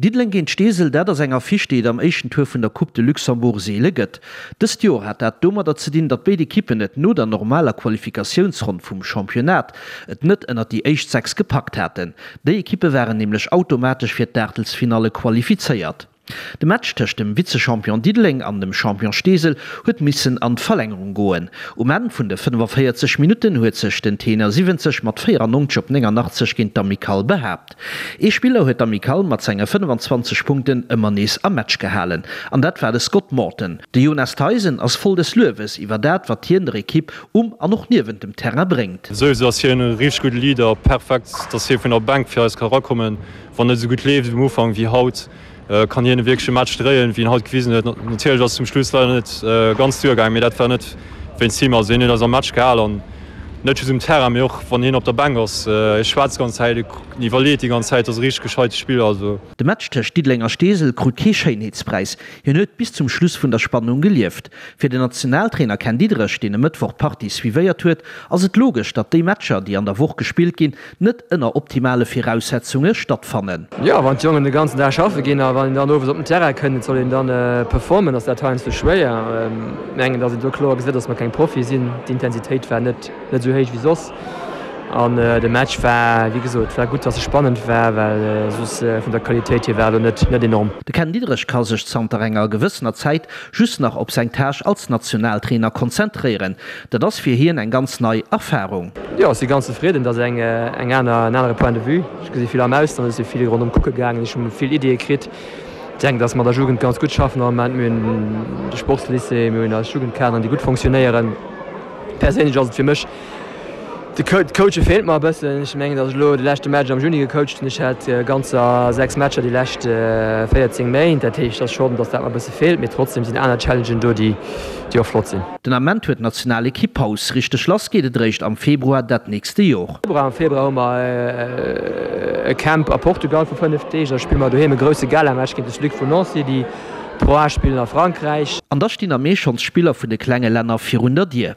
Diddeleng géint Steesel, dat ass eng Affiche, déi et am éischten Tour vun der Coupe de Luxembourg seele gëtt. Dëst Joer hat dat domadder ze dinn, datt béid Ekippen et no der normaler Qualifikatiounsronn vum Championnat et net ënnert déi éischt 6 gepackt haten. Déi Ekippe waren nämlech automatesch fir d'Aachtelsfinalle qualifizéiert. De Match tëscht dem Vizechampion Diddeleng an dem Champion Steesel huet missen an d'Verlängerung goen. Um Enn vun de 45 Minutten huet sech den Tenor 70 mat 94 op 89 géint d'Amicale behaapt. Ee Spiller huet d'Amicale mat senge 25 Punkten ëmmer nees am Match gehalen an dat war de Scott Morton. De Jonas Theisen ass voll des Luewes iwwer dat, wat hien der Ekipp um an och niewent dem Terrain bréngt. Souwisou ass hien e richteg gudde Leader, perfekt, dass hie vun der Bänk fir eis ka erakommen. Wann net esou gutt leeft um Ufank wéi haut, kann hien e wierkleche Match dréien, wéi en haut gewisen huet. Natierlech ass et zum Schluss leider net ganz duergaangen, mee dat war net wéinst him. Also hien huet eis am Match gehal an net just um Terrain, mee och wann hien op der Bänk ass. Hie schwätzt d'ganz Zäit, en iwwerleet déi ganz Zäit, ass e richteg gescheite Spiller. Also. De Match tëscht Diddeleng a Steesel krut kee Schéinheetspräis. Hien huet bis zum Schluss vun der Spannung gelieft. Fir den Nationaltrainer Ken Diederich, deen e Mëttwoch d'Partie suivéiert huet, ass et logesch, datt déi Matcher, déi an der Woch gespillt ginn, net ënner optimale Viraussetzunge stattfannen. Jo, wann d'Jongen de ganzen Dag schaffe ginn a wann een dann owes op den Terrain kënnt, et soll een dann performen, ass dat heiansdo schwéier. Mengen, datt een do kloer gesäit, datt mer keng Profie sinn. D'Intensitéit war net net esou héich wéi soss an de Match war, wéi gesot, war gutt, datt e spannend war, well soss vun der Qualitéit hier war elo net net enorm. De Ken Diederich ka sech zanter enger gewëssener Zäit just nach op seng Tâche als Nationaltrainer konzentréieren. Dat ass fir hien eng ganz nei Erfarung. Jo, ech si ganz zefridden. Dat ass eng eng aner, en anere Point de vue. Ech gesi vill am Ausland, ech si vill ronderëm kucke gaangen, ech hu vill Iddie kritt. Ech denken, datt mer der Jugend ganz gutt schaffen am Moment. Mir hunn de Sportslycée, mir hunn eis Jugendkaderen, déi gutt fonctionnéieren. Perséinlech ass et fir mech, de Coache feelt mer e bëssen. Ech mengen, datt ech elo de leschte Match am Juni gecoacht hunn. Ech hat ganzer 6 Matcher déi lescht 14 Méint. Dat heescht, et ass schonn, datt dat mer e bësse feelt. Mee trotzdem sinn aner Challengen do, déi och flott sinn. Den Ament huet d'Nationalekipp Paus. Richteg lass geet et eréischt am Februar dat nächste Jor. Am Februar hu mer e Camp a Portugal vu 5 Deeg. Da spille mer doheem e grousse Galamatch géint de Sluc vun Nancy, déi Pro A spillen a Frankräich. An da stinn am Mee schonns d'Spiller vun de klenge Länner virun der Dier.